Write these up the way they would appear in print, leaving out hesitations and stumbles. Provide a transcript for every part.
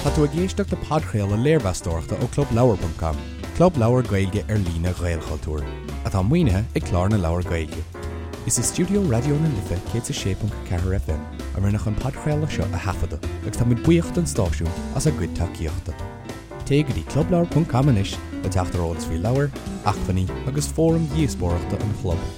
Tá tú ag éisteacht le podchraoladh léirmheastóireachta ó ClubLeabhar.com, club leabhar Gaeilge ar líne Ghaelchultúir, atá maoinithe ag Clár na Leabhar Gaeilge. Is i stiúideo Raidió na Life 106.4 FM a rinneadh an podchraoladh seo a thaifeadadh agus táimid buíoch don stáisiún as a gcuid tacaíochta. Téigh go dtí clubleabhar.com anois le teacht ar eolas faoi leabhair, acmhainní agus fóraim dhíospóireachta an chlub.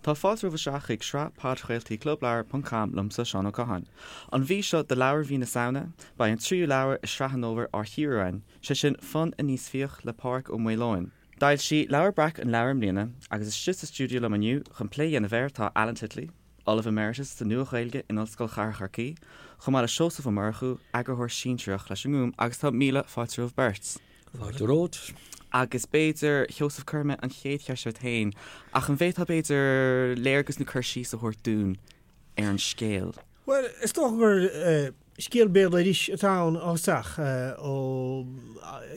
Tá fáilte romhaibh isteach chuig sraith podchraoltaí Clubleabhar ponc com liomsa, Seán Ó Catháin. An mhí seo do leabhar mhí na Samhna, beidh an tríú leabhar i sraith an fhómhair á chíoradh againn, sé sin Fonn Aníos Fiach le Pádraig Ó Maoileoin. D'fhoilsigh Leabhar Breac an leabhar i mbliana agus istigh sa stiúideo liom inniu chun plé a dhéanamh air tá Alan Titley, Ollamh Emeritus sa Nua-Ghaeilge in Ollscoil Chathair Chorcaí, chomh maith le Seosamh Ó Murchú, Eagarthóir Sinsearach leis an nGúm agus tá míle fáilte romhaibh beirt. Fáilte romhat. Agus b'fhéidir, Sheosamh, cuirfidh mé an chéad cheist ort féin, ach an bhféadfá b'fhéidir léargas nó cur síos a thabhairt dúinn ar an scéal? Bhuel, is dócha gur scéal béaloidis atá ann ó thosach, ó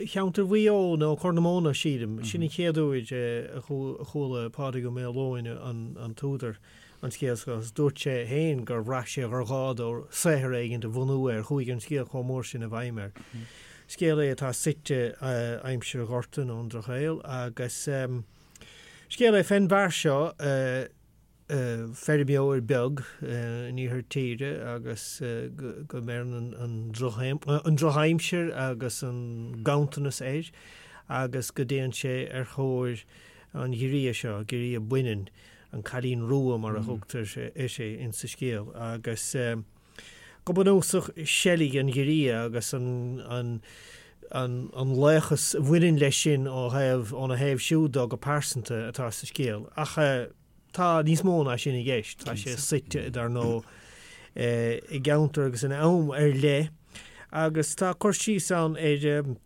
cheantar Mhaigh Eo nó Corr na Móna, sílim. Sin an chéad uair a chuala Pádraig Ó Maoileoin, an t-údar, an scéal seo agus dúirt sé féin gur bhraith sé gur ghá dó saothar éigin a bhunú air, chuaigh an scéal chomh mór sin i bhfeidhm air. Scéal é atá suite aimsir an Ghorta nó an Drochshaoil agus scéal é fén bhfear seo, feirmeoir beag in iarthar tíre agus go mbeireann an drochaimsir agus an ganntanas air agus go dtéann sé ar thóir an ghiorria seo, giorria baineann. an Cailín Rua mar a thugtar uirthi insa scéal, agus go bunúsach seilg an ghiorria agus an laochas a bhaineann leis sin ó thaobh, óna thaobh siúd dó go pearsanta atá sa scéal. Ach tá níos mó ná sin i gceist. Tá sé suite, dar ndóigh, i gceantar agus in am ar leith agus tá cur síos ann ar,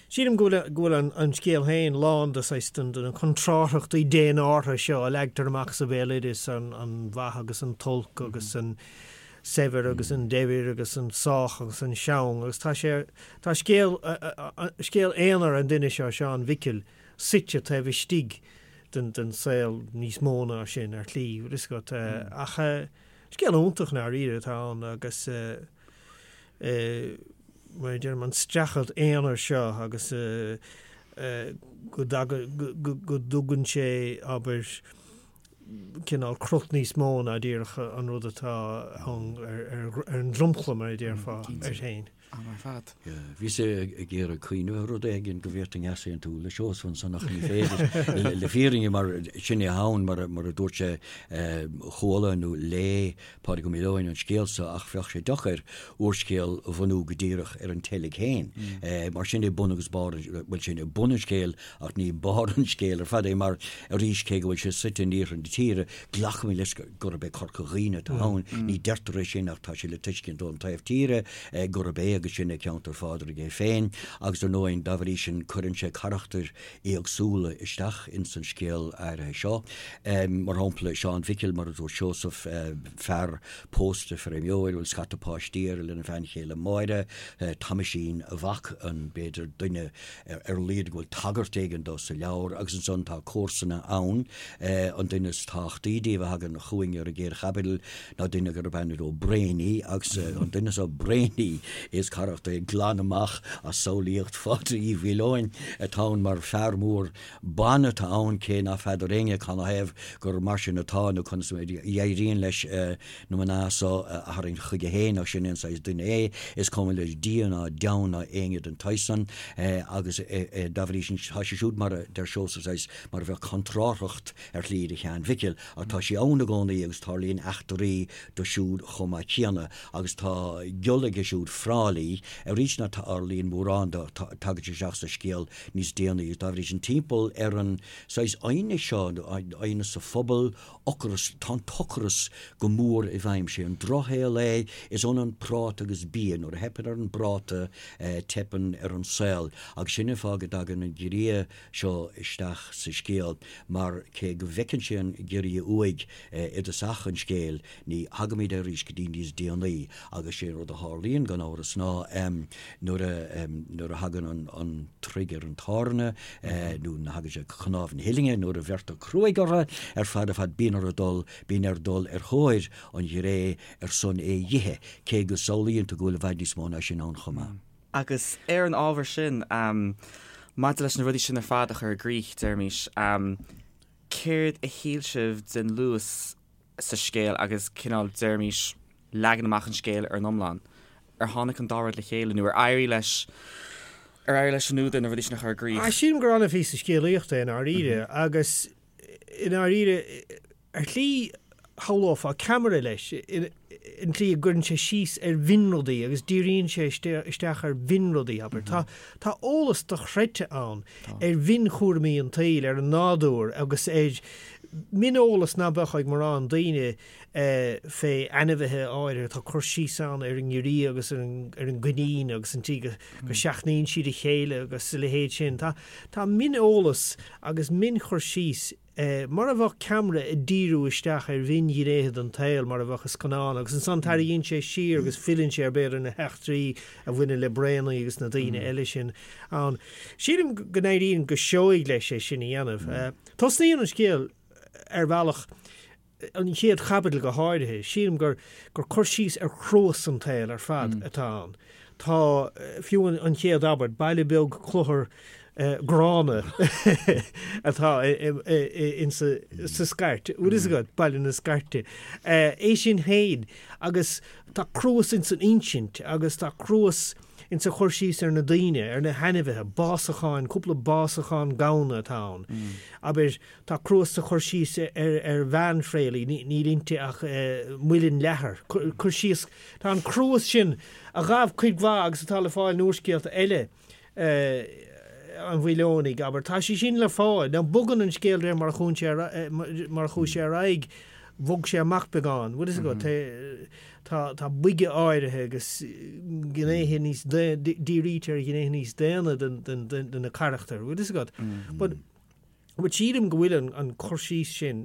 Sílim go bhfuil, go bhfuil an scéal féin lán de saghas de na contrárthachtaí dénártha seo a leagtar amach sa bhéaloideas, an mhaith agus an t-olc agus an saibhir agus an daibhir agus an sách agus an seang agus tá sé, tá scéal, scéal aonair an duine seo, Seán Mhicil, suite taobh istigh den, den saol níos mó ná sin ar shlí, bhfuil fhios agat. Ach scéal iontach i ndáiríre atá ann agus. mar a deirim, an streachailt aonair seo agus go dtugann sé, abair, cineál crot níos mó ná díreach an rud atá ann ar an dromchla, mar a déarfá, air féin. Am ar fad. Bhíos ag iarraidh cuimhneamh ar rud éigin go bhféadfainn easaontú le Seosamh ansan ach ní féidir le fírinne mar sin é ann mar a dúirt sé chuala nó léigh Pádraig Ó Maoileoin an scéal so ach bheadh sé deacair úrscéal a bhunú go díreach ar an tseilg féin. Mar sin é bun agus barr, bhuel sin é bun an scéil ach ní barr an scéil ar fad é mar arís cé go bhfuil sé suite in iarthar na tíre glacaimid leis gurb é Corca Dhuibhne atá ann. Ní deirtear é sin ach tá sé le tuiscint ón taobh tíre gurb é agus sin é ceantar Phádraig é féin agus ar ndóigh dá bhrí sin cuireann sé carachtair éagsúla isteach ins an scéal áirithe seo. Mar shampla, Seán Mhicil, mar a dúirt Seosamh, fear pósta, feirmeoir, a bhfuil scata páistí air lena bhean chéile Máire, Tomaisín, a mhac, an, b'fhéidir, duine ar a laghad go bhfuil tagairt éigin dó sa leabhar, agus ansan tá comharsana ann, an duine is tábhachtaí díobh a thagann chugainn ar an gcéad chaibidil ná duine gurb ainm dó Brainy, agus an duine seo Brainy, is carachtar é glan amach as samhlaíocht Phádraig Uí Mhaoileoin atá ann mar fear mór ban atá ann, cé ná feadar éinne canathaobh gur mar sin atá nó conas a éiríonn leis na mná so a tharraingt chuige féin ach sin é an saghas duine é, is cuma leis Dia ná deamhan ná éinne den tsaghas san agus dá bhrí sin tá sé siúd mar a deir Seosamh saghas mar a bheadh contrárthacht ar shlí do Sheán Mhicil ach tá sí ann i gcónaí agus tarlaíonn eachtraí dó siúd chomh maith céanna agus tá giolla aige siúd Fráilí arís ná tarlaíonn mórán dó, tagann sé isteach sa scéal níos déanaí agus dá bhrí sin timpeall ar an saghas aighneas seo, aighneas sa phobal, ocras, tá an t-ocras go mór i bhfeidhm, sé an drochshaol é, is ionann práta agus bia, nuair a theipeann ar an bpráta teipeann ar an saol agus sin an fáth go dtagann an giorria seo isteach sa scéal mar cé go bhfeiceann sé an giorria uaidh i dtosach an scéil, ní thagaimid air arís go dtí níos déanaí agus sé an rud a tharlaíonn gan amhras ná. ná nuair a nuair a thagann an an troigh ar an tairne nó nuair a thagann sé go cnámh na huillinne, nuair a bheirtear cruaidh orthu ar fad ar fad bíonn orthu dul bíonn air dul ar thóir an ghiré ar son é dh'ithe, cé go samhlaíonn tú go bhfuil i bhfad níos mó ná sin ann chomh maith. Agus ar an ábhar sin, maidir leis na rudaí sin ar fad a chur i gcrích, deirimis, céard a shíl sibh den luas sa scéal agus cineál, deirimis, leagan amach an scéil ar an iomlán? Ar tháinig an dá rud le chéile nó ar éirigh leis, ar éirigh leis an údar na rudaí sin a chur i gcrích? Sílim gur an-phíosa scéalaíochta é i ndáiríre agus i ndáiríre, Ar shlí, shamhlófá ceamara leis, an tslí a gcuireann sé síos ar mhionrudaí agus díríonn sé isteach ar mhionrudaí, abair. Tá, tá eolas dochreidte ann ar mhionchúraimí an tsaoil, ar an nádúr agus ar mhioneolas ná beadh ag mórán daoine fé ainmhithe áirithe. Tá cur síos ann ar an ngiorria agus ar an, ar an gcoinín agus an tslí go, go seachnaíonn siad a chéile agus a leithéid sin. Tá, tá mioneolas agus mionchur síos mar a bheadh ceamara ag díriú isteach ar mhionghnéithe den tsaol, mar a bheadh i scannán, agus ansan tarraingíonn sé siar agus filleann sé ar b'fhéidir na heachtraí a bhaineann le Braonaí agus na daoine eile sin ann. Sílim go n-éiríonn go seoigh leis é sin a dhéanamh. Tosnaíonn an scéal ar bhealach an chéad chaibidil go háirithe, sílim gur gur cur síos ar chruas an tsaoil ar fad atá ann. Tá, fiú an chéad abairt, baile beag cluthar gránna atá insa sa Scairt, bhfuil fhios agat, Baile na Scairte. É sin féin agus tá cruas insan insint agus tá cruas insa chur síos ar na daoine, ar na hainmhithe, básacháin, cúpla básachán gamhna atá ann. Abair, Tá cruas sa chur síos ar bhean Phréalaí, níl inti ach muileann leathair. Cur síos, tá an cruas sin, a ghabh cuid mhaith agus atá le fáil in úrscéalta eile an Mhaoileonaigh, abair, tá sé sin le fáil. Now bogann an scéal de réir mar a chuaigh sé, mar a chuaigh sé ar aghaidh, bhog sé amach beagán. Bhfuil fhios agat, tá, tá boige áirithe agus gnéithe níos, dírítear ar ghnéithe níos daonna de na carachtair, bhfuil fhios agat. But But sílim go bhfuil an cur síos sin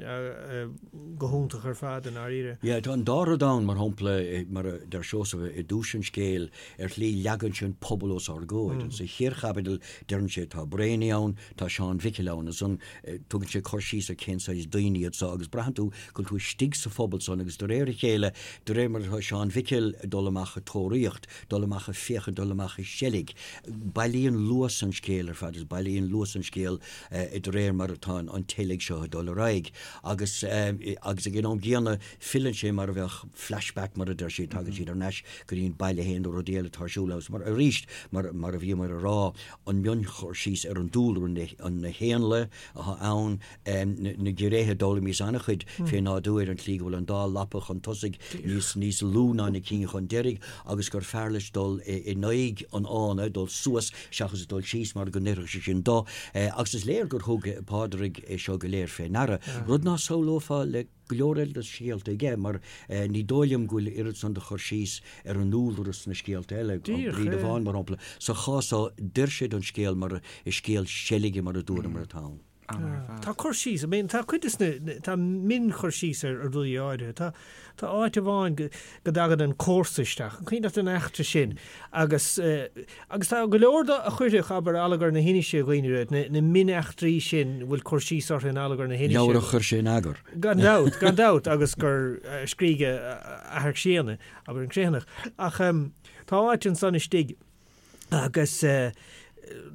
go hiontach ar fad i ndáiríre. Yeah, tá an dá rud ann, mar shampla, mar a deir Seosamh i dtús an scéil, ar shlí leagann sé an pobal os ár gcomhair. Sa chéad chaibidil deireann sé tá Braonaí ann, tá Seán Mhicil ann, ansan tugann sé cur síos ar cén saghas daoine iad so agus braitheann tú go bhfuil tú istigh sa phobal san agus de réir a chéile, de réir mar atá Seán Mhicil ag dul amach ag tóraíocht, dul amach ag féachaint, dul amach ag seilg. Bailíonn luas an scéil ar fad, is bailíonn luas an scéil de réir mar atá an tseilg seo ag dul ar aghaidh. Agus agus ag an am gcéanna filleann sé mar a bheadh flashback mar a deir siad, tagann siad ar ais go dtí an baile féin nó rudaí eile atá ar siúl agus mar arís mar mar a bhíomar a rá an mionchur síos ar an dúlra, na héanlaith atá ann, na giorriacha, d'fhoghlaimíos an-chuid fé nádúr, an tslí go bhfuil an dá lapa chun tosaigh níos níos lú ná na cinn chun deiridh agus gur fearr leis dul in aghaidh an fhána, dul suas seachas dul síos mar go n-oirfeadh sé sin dó. Agus is léir gur thug Pádraig é seo go léir fé ndeara, rud ná samhlófá le go leor eile de scéalta aige mar ní dóigh liom go bhfuil oiread san de chur síos ar an ndúlra sna scéalta eile, An Bríde Bhán mar shampla. Sa chás so, d'oir sé don scéal mar is scéal seilge mar a dúramar atá ann. Tá cur síos, I mean, tá cuid de sna, tá mionchur síos ar rudaí áirithe. Tá, tá áit amháin go, go dtagann an comharsa isteach, an cuimhin leat an eachtra sin? Agus, agus tá go leor de a chuirfeadh, abair, Allagar na hInise i gcuimhne duit, na, na mioneachtraí sin a bhfuil cur síos orthu in Allagar na hInise. Leabhar a chuir sé in eagar. Gan dabht, gan dabht, agus gur scrígh a athair críonna, abair, an Criomhthanach. Ach tá áit ansan istigh, agus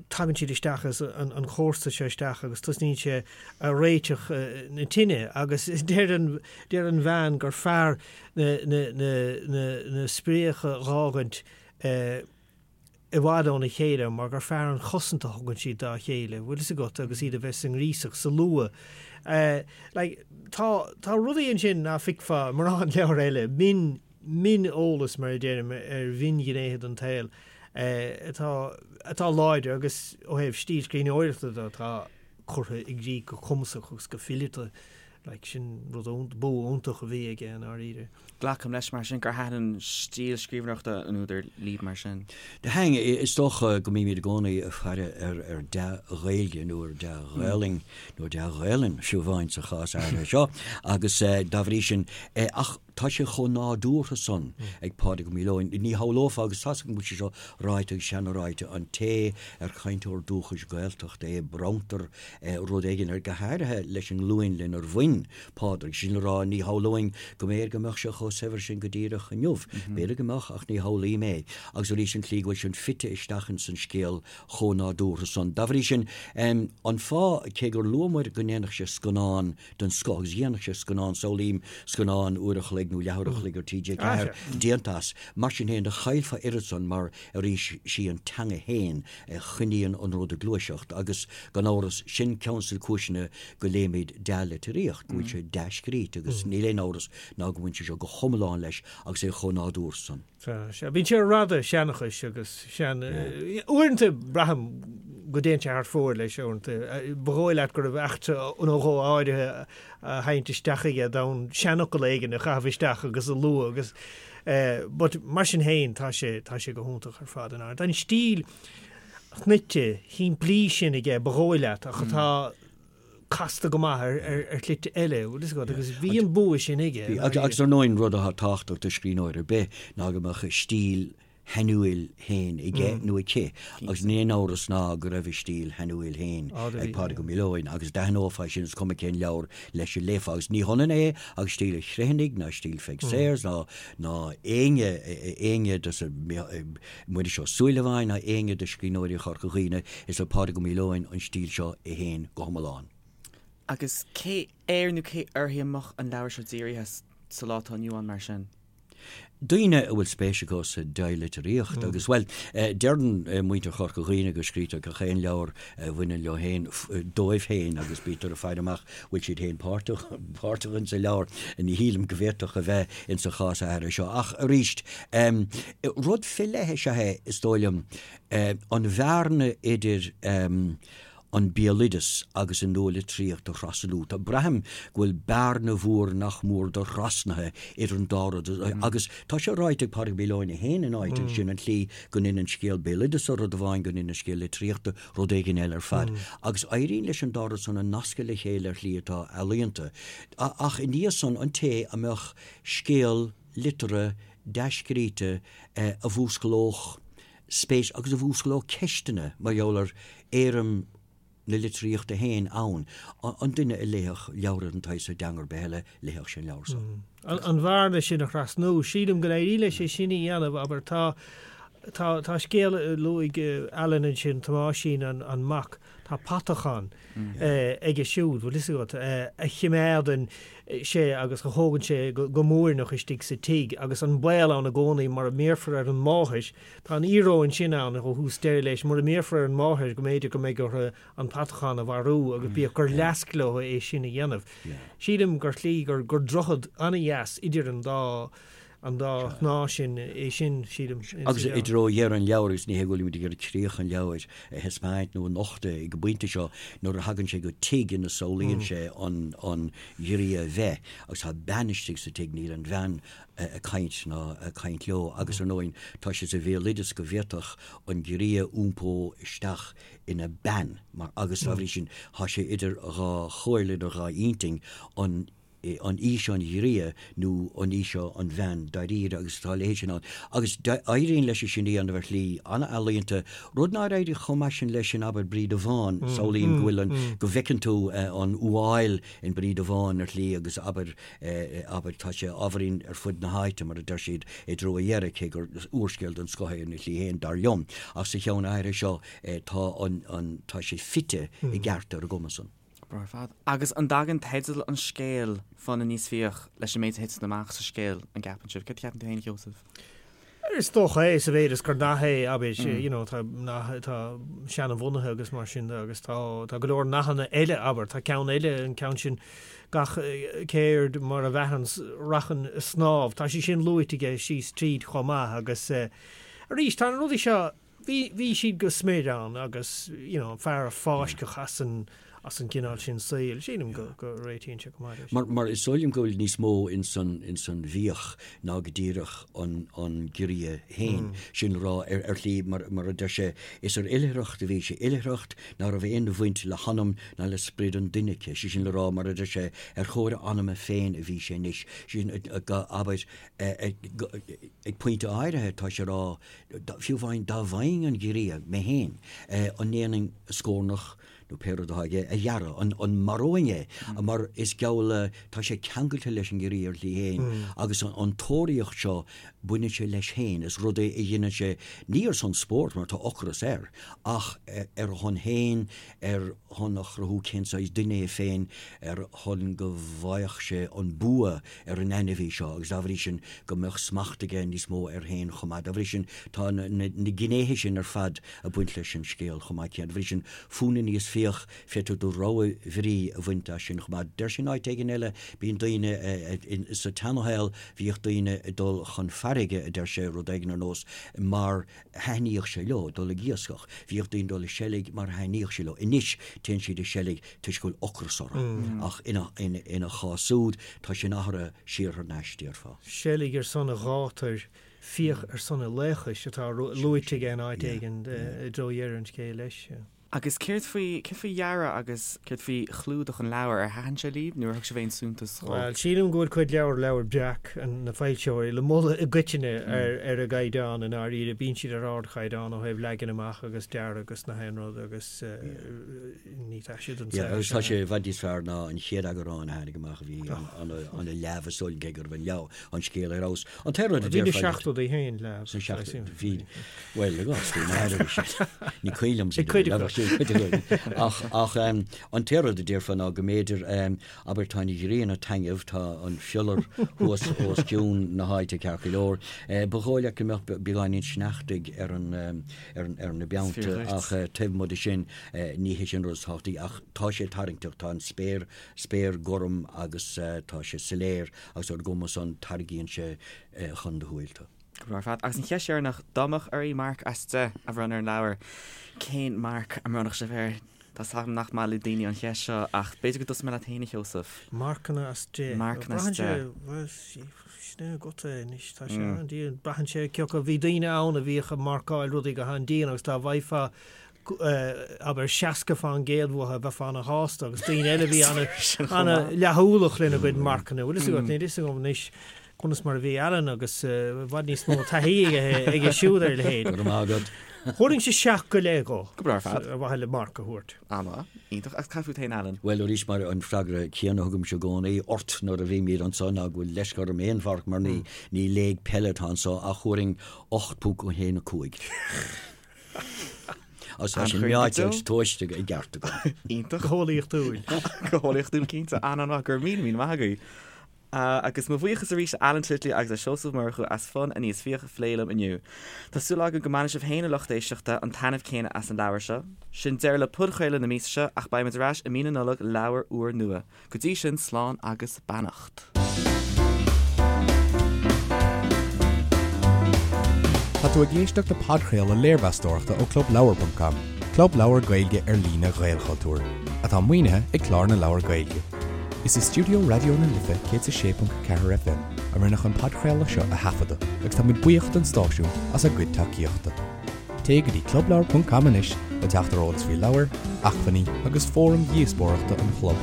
tagann siad isteach agus an comharsa seo isteach agus tosnaíonn sé a réiteach na tine agus deir an deir an bhean gur fearr na na na na na spréacha dh'fhágaint i bhfad óna chéile mar gur fearr an chosaint a thugann siad dá chéile, bhfuil fhios agat, agus iad a bheith sa ngríosach, sa luaith. Like, tá tá rudaí ansin ná feicfeá i mórán leabhar eile, min mioneolas, mar a deirim, ar mhionghnéithe den tsaol atá atá láidir agus ó thaobh stíl scríbhneoireachta de atá curtha i gcrích go cumasach agus go fileata. Like, sin rud iontach, bua iontach a bhí aige i ndáiríre. Glacaim leis mar sin gur thaitin an stíl scríbhneoireachta an údair libh mar sin. Thaitin, is dócha go mbímid i gcónaí ag faire ar ar dea-Ghaeilge nó ar dea-Ghaelainn nó dea-Ghaelainn fiú amháin sa chás áirithe seo agus dá bhrí sin ach. Tá sé chomh nádúrtha san ag Pádraig Ó Maoileoin. Ní shamhlófá, agus tá's agam go bhfuil sé seo ráite agus seana-ráite, an té ar chainteoir dúchais Gaeltachta é, bronntar rud éigin air, go háirithe leis an nglúin lenar bhain Pádraig. Sin le rá, ní shamhlóinn go mb'fhéidir go mbeadh sé chomh saibhir sin go díreach inniu. B'fhéidir go mbeadh, ach ní shamhlaím é. Agus arís an tslí go bhfuil sin fite isteach ins an scéal chomh nádúrtha san. Dá bhrí sin, an fáth, cé gur luamar go ndéanfadh sé scannán den scoth, agus dhéanfadh sé scannán, samhlaím scannán uair a chloig nó leathuair a chloig ar TG4 déanta as, mar sin féin, do chaillfeá oiread san mar, arís, sí an teanga féin a choinníonn an rud ag gluaiseacht agus, gan amhras, sin ceann de na cúiseanna go léimid dea-litríocht, go bhfuil sé dea-scríte agus níl aon amhras ná go mbaineann sé seo go hiomlán leis agus é chomh nádúrtha san. Sea, sea. Bíonn sé ar rada seanchais agus sean. Uaireanta braithim go dtéann sé thar fóir leis uaireanta. Ba dhóigh leat go raibh eachtra nó dhó áirithe á sheinnt isteach aige d'fhonn seanfhocal éigin a chaitheamh isteach agus a lua agus but mar sin féin tá sé, tá sé go hiontach ar fad in Tá an stíl shnoite, shimplí sin aige ba dhóigh leat ach atá casta go maith ar shlite eile, bhfuil fhios agat, agus bhí an bua sin aige. Bhí, agus ar ndóigh an rud atá tábhachtach do scríbhneoir ar bith ná go mbeadh a stíl shainiúil féin aige nó aici agus níl aon amhras ná go raibh a stíl shainiúil féin ag Pádraig Ó Maoileoin agus d'aithneofá sin is cuma cén leabhar leis a léifeá agus ní hionann é agus stíl an Chriomhthanaigh ná stíl Pheig Sayers ná ná éinne éinne de sa Muiris Ó Súilleabháin ná éinne de scríbhneoirí Chorca Dhuibhne, is le Pádraig Ó Maoileoin an stíl seo é féin go hiomlán. Agus cé air nó cé uirthi a mbeadh an leabhar seo dírithe sa lá atá inniu ann mar sin? Daoine a bhfuil spéis acu sa dea-litríocht agus, bhuel, deireann muintir Chorca Dhuibhne go scrítear gach aon leabhar a bhaineann leo féin dóibh féin agus bítear ag faire amach bhfuil siad féin páirteach páirteach insa leabhar. Ní shílim go bhféadfadh a bheith insa chás áirithe seo. Ach arís, rud fé leith is ea é, is dóigh liom, an bhearna idir an béaloideas agus an nualitríocht a thrasnú. Tá, braithim go bhfuil bearna mhór nach mór do-thrasnaithe idir an dá rud agus tá sé ráite ag Pádraig Ó Maoileoin é féin in áit ansin an tslí go ndéanann scéal béaloideasa rud amháin, go ndéanann scéal litríochta rud éigin eile ar fad. Agus éiríonn leis an dá rud san a nascadh le chéile ar shlí atá ealaíonta. Ach i ndiaidh san, an té a mbeadh scéal liteartha dea-scríte a mhúsclódh spéis agus a mhúsclódh ceisteanna mar gheall ar éirim na litríochta féin ann, an duine a léifeadh leabhar den tsaghas seo i dteanga ar bith eile, léifeadh sé an leabhar seo. An bhearna sin a thrasnú, sílim go n-éiríonn leis é sin a dhéanamh, abair, tá, tá, tá scéal a luaigh Alan ansin, Tomáisín an, an mac, tá patachán aige siúd, bhfuil fhios agat, a chimeádann sé agus a thógann sé go múirneach istigh sa tigh agus an baol ann i gcónaí mura mbéarfar ar an máthair, tá an íoróin sin ann ó thús deireadh leis, mura mbéarfar ar an máthair go mb'fhéidir go mbeidh orthu an patachán a mharú agus bíodh gur leasc leo é sin a dhéanamh. Sílim gur shlí, gur droichead an-dheas idir an dá an dá shnáth sin é sin, sílim. Agus i dtreo dheireadh an leabhair, agus ní hé go bhfuilimid ag iarraidh críoch an leabhair a thaispeáint nó a nochtadh ag an bpointe seo, nuair a thagann sé go tigh ina samhlaíonn sé an an ghiorria bheith, agus tá bean istigh sa tigh, níl an bhean ag caint ná ag caint leo, agus ar ndóigh tá sé sa bhéaloideas go bhféadfadh an giorria iompó isteach ina bean, mar, agus dá bhrí sin tá sé idir dhá chomhairle, idir dhá intinn, an an í seo an ghiorria nó an í seo an bhean dáiríre agus tá a leithéid sin ann. Agus éiríonn leis sin a dhéanamh ar shlí an-ealaíonta, rud nár éirigh chomh maith sin leis in abair Bríde Bhán, samhlaím go bhfuil an, go bhfeiceann tú an fhuáil in Bríde Bhán ar shlí agus abair, abair tá sé ábhairín ar fud na háite mar a deir siad i dtreo a dheiridh, cé gur úrscéal den scoth é ina shlí féin, dar liom. Ach sa cheann áirithe seo tá an, an, tá sé fite i gceart ar an gcuma san. Breá ar fad. Agus an dtagann teideal an scéil, Fonn Aníos Fiach, leis an méid a thiteann amach sa scéal, an gceapann sibh? Céard a cheapann tú féin, a Sheosaimh? Is dócha é, sa mhéid is gur nath é, abair, you know, tá nath atá seanbhunaithe agus mar sin de agus tá, tá go leor nathanna eile, abair, tá ceann eile, an ceann sin, gach ceird mar a mheathann rachainn a snámh, tá sé sin luaite aige síos tríd chomh maith agus arís, tá na rudaí seo, Bhí, bhí siad go smior ann agus, you know, an fear a fáisceadh as an, as an gcineál sin saoil. Sílim go go réitíonn sé go maith leis. Mar mar is dóigh liom go bhfuil níos mó ins an ins an bhfiach ná go díreach an an giorria féin. Sin le rá ar ar shlí mar mar a deir sé is ar oilithreacht a bhí sé, oilithreacht ná raibh aon bhaint le hanam ná le sprid an duine aici. Sé sin le rá mar a deir sé ar thóir a anama féin a bhí sé anois. Sé sin abair ag pointe áirithe tá sé ag rá fiú amháin dá bhfaighinn an giorria mé féin an ndéanfainn a scornach nó pé rud atá aige, a ghearradh, an maróinn é, mar is geall le, tá sé ceangailte leis an ngiorria ar shlí féin agus an tóraíocht seo, baineann sé leis féin, is rud é a dhéanann sé, ní ar son spóirt, mar tá ocras air, ach ar a shon féin, ar shon a chruthú cén saghas duine é féin, ar shon go bhfaigheadh sé an bua ar an ainmhí seo agus dá bhrí sin go mbeadh smacht aige níos mó air féin chomh maith. Dá bhrí sin tá na gnéithe sin ar fad ag baint leis an scéal chomh maith céanna. Dá bhrí sin Fonn Aníos Fiach, féadfaidh tú do rogha bhrí a bhaint as sin chomh maith. Deir sé in áit éigin eile, bíonn daoine, sa tseanashaol bhíodh daoine ag dul chun farraige, a deir sé, rud éigin ar nós, mar thaitníodh sé leo dul ag iascach. Bhíodh daoine ag dul ag seilg mar thaitníodh sé leo. Anois téann siad ag seilg toisc go bhfuil ocras orthu. Ach ina chás úd tá sin athraithe siar thar n-ais, déarfá. Seilg ar son a ghátair, fiach ar son a laochais atá luaite aige in áit éigin i dtreo dheireadh an scéil leis. Agus céard faoi, céard faoi dhearadh agus céard faoi chlúdach an leabhair? Ar thaitin sé libh nó ar thug sibh aon suntas dhó? Bhuel, sílim go bhfuil cuid leabhar, Leabhar Breac, na foilsitheoirí, le moladh i gcoitinne ar ar a gcaighdeán i ndáiríre. Bíonn siad ar ardchaighdeán ó thaobh leagan amach agus dearadh agus na haon rud agus ní taise don saol Agus tá sé i bhfad níos fearr ná an chéad eagrán a tháinig amach a bhí an-leamh is dóigh liom cé go raibh an leabhar, an scéal ar fheabhas. An t-aon rud a déarfá. Bhí na seachtóidí féin leamh. Sna seachtóidí, bhí, bhuel, i gcás faoi mar a bhí siad. Ní cuimhin liom siad a bheith sin cuid acu. Ach, ach an t-aon rud a déarfá ná go mb'fhéidir, abair, tá an ghrian ag taitneamh, tá an fiolar thuas os cionn na háite ceart go leor. Ba dhóigh leat go mbeadh beagáinín sneachtaidh ar an, ar an, ar na beannta ach taobh amuigh de sin, ní hé sin an rud is tábhachtaí ach tá sé tarraingteach, tá an spéir, spéir gorm agus tá sé soiléir agus ar an gcuma san tarraingíonn sé chun do shúil tú. Go breá ar fad. Agus an cheist dheireanach, dá mbeadh oraibh marc as 10 a bhronnadh ar an leabhar, cén marc a mbronnfadh sibh air? Tá 's agam nach maith le daoine an cheist seo ach b'fhéidir go dtosóidh mé leat féin, a Sheosaimh. Marcanna as 10. Marcanna as 10. Bhuel, sin é agat é anois. Tá sé an-dian. Braitheann sé cé acu. Bhí daoine ann a bhíodh ag marcáil rudaí go han-dian agus dá bhfaighfeá abair 60% uathu bheifeá ana-shásta agus daoine eile a bhí ana-leatheolach lena gcuid marcanna. Bhfuil fhios agat, níl fhios agam anois conas mar a bhí Alan agus i bhfad níos mó taithí aige siúd ar a leithéid. Go raibh maith agat. Thabharfainnse 7 go leith dhó. Go breá ar fad. Ar mhaithe le marc a thabhairt. An-mhaith. Iontach. Agus cad fút féin, Alan? Bhuel, arís, mar an freagra céanna a thugaimse i gcónaí ort nuair a bhímid anso ná go bhfuil leisce orm aon mharc mar ní léig peile atá anso ach thabharfainn 8.15. Agus tá sin meáite agus tomhaiste i gceart agam. Iontach. Go heolaíochtúil. Go heolaíochtúil cinnte. An-an-mhaith. Go raibh míle míle maith agaibh. Agus mo bhuíochas arís le Alan Titley agus le Seosamh Ó Murchú as Fonn Aníos Fiach a phlé liom inniu. Tá súil agam go mbainfidh sibh féin a lucht éisteachta an taitneamh céanna as an leabhar seo. Sin deireadh le podchraoladh na míosa seo ach beidh muid ar ais i mí na Nollag le leabhar úr nua. Go dtí sin, slán agus beannacht. Tá tú ag éisteacht le podchraoladh léirmheastóireachta ó ClubLeabhar.com, club leabhar Gaeilge ar líne Ghaelchultúir, atá maoinithe ag Clár na Leabhar Gaeilge. Is i stiúideo Raidió na Life 106.4 FM a rinneadh an podchraoladh seo a thaifeadadh agus táimid buíoch don stáisiún as a gcuid tacaíochta. Téigh go dtí clubleabhar.com anois le teacht ar eolas faoi leabhair, acmhainní agus fóraim dhíospóireachta an chlub.